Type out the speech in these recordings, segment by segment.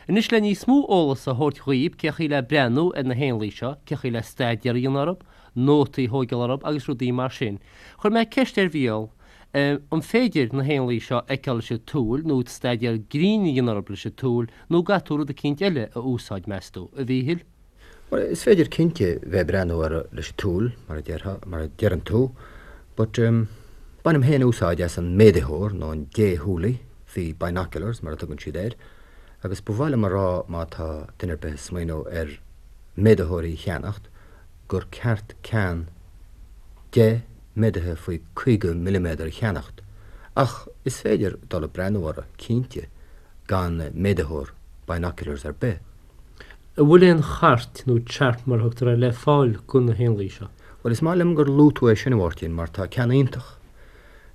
Anois le níos mó eolas a thabhairt dhaoib cé chaoi le breathnú ar na héanlaith seo, cé chaoi le staidéar a dhéanamh orthub, nótaí a thóigeáil orthub agus rudaí mar sin, chuir mé ceist ar Mhícheál an féidir na héanlaith seo a fheiceáil leis an tsúil nó staidéar grinn a dhéanamh orthub leis an tsúil nó an gcaithfidh tú rud eicínt eile a úsáid, meas tú, a Mhíchíl? Bhuel, is féidir cinnte bheith ag breathnú orthu leis an tsúil, mar a déarfá, mar a deireann tú, but bainim féin úsáid as an méadaitheoir nó an déshúilí, the binoculars mar a tugann siad air, agus ba mhaith liom a rá má tá duine ar bith ag smaoineamh ar méadaitheoirí a cheannacht, gur ceart ceann 10 méadaithe faoi 50 milliméadar a cheannacht, ach is féidir dul ag breathnú orthu, cinnte, gan méadaitheoir, binoculars ar bith. An bhfuil aon chairt, nó chart mar a thugtar air, le fáil do na héanlaith seo? Bhuel, is maith liom gur luaigh tú é sin, a Mháirtín, mar tá ceann iontach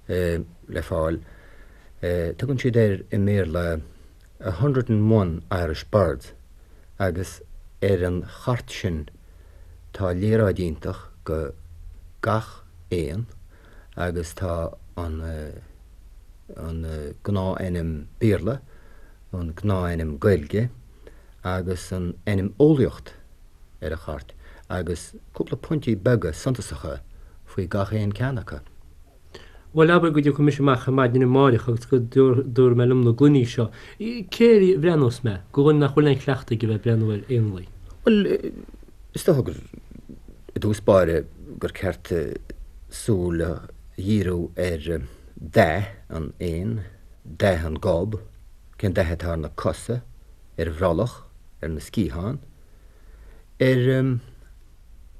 le fáil. Tugann siad air i mBéarla 101 Irish Birds agus ar an chairt sin tá léaráid iontach go gach éan agus tá an an gnáth-ainm Béarla, an gnáth-ainm Gaeilge agus an ainm eolaíocht ar an chairt agus cúpla pointí beaga suntasacha faoi gach aon ceann acu. Bhuel, abair go dtiocfaidh mise amach ar maidin amáireach agus go dtabharfaidh mé liom na gloiní seo. Cé air a bhreathnós mé, do dhuine nach bhfuil aon chleachtadh aige bheith ag breathnú ar éanlaith? Bhuel, is dócha gur i dtús báire gur ceart súil a dhíriú ar dath an éin, dath an gob, cén dath atá ar na cosa, ar an bhrollach, ar na sciatháin, ar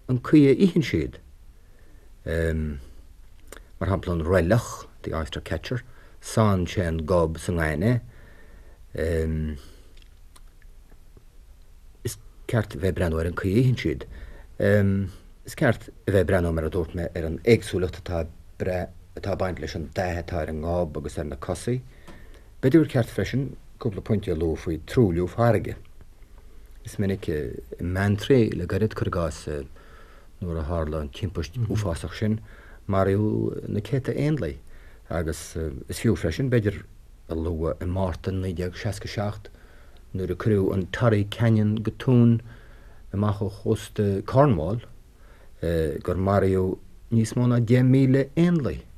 an caoi a itheann siad, mar shampla an roilleach, the oyster catcher, sánn sé an gob sa ngaineamh. Is ceart a bheith ag breathnú ar an caoi a itheann siad. Is ceart a bheith ag breathnú, mar a dúirt mé, ar an éagsúlacht atá atá ag baint leis an dath atá ar an ngob agus ar na cosaí. B'fhéidir gur ceart freisin cúpla pointe a lua faoi truailliú farraige. Is minic i mBeanntraí le gairid, cuir i gcás, nuair a tharla an timpist uafásach sin, maraíodh na céadta éanlaith agus is fiú freisin, b'fhéidir, a lua i Márta 1967 nuair a cuireadh an Torrey Canyon go tóin amach ó chósta Cornwall, gur maraíodh níos mó ná 10,000 éanlaith.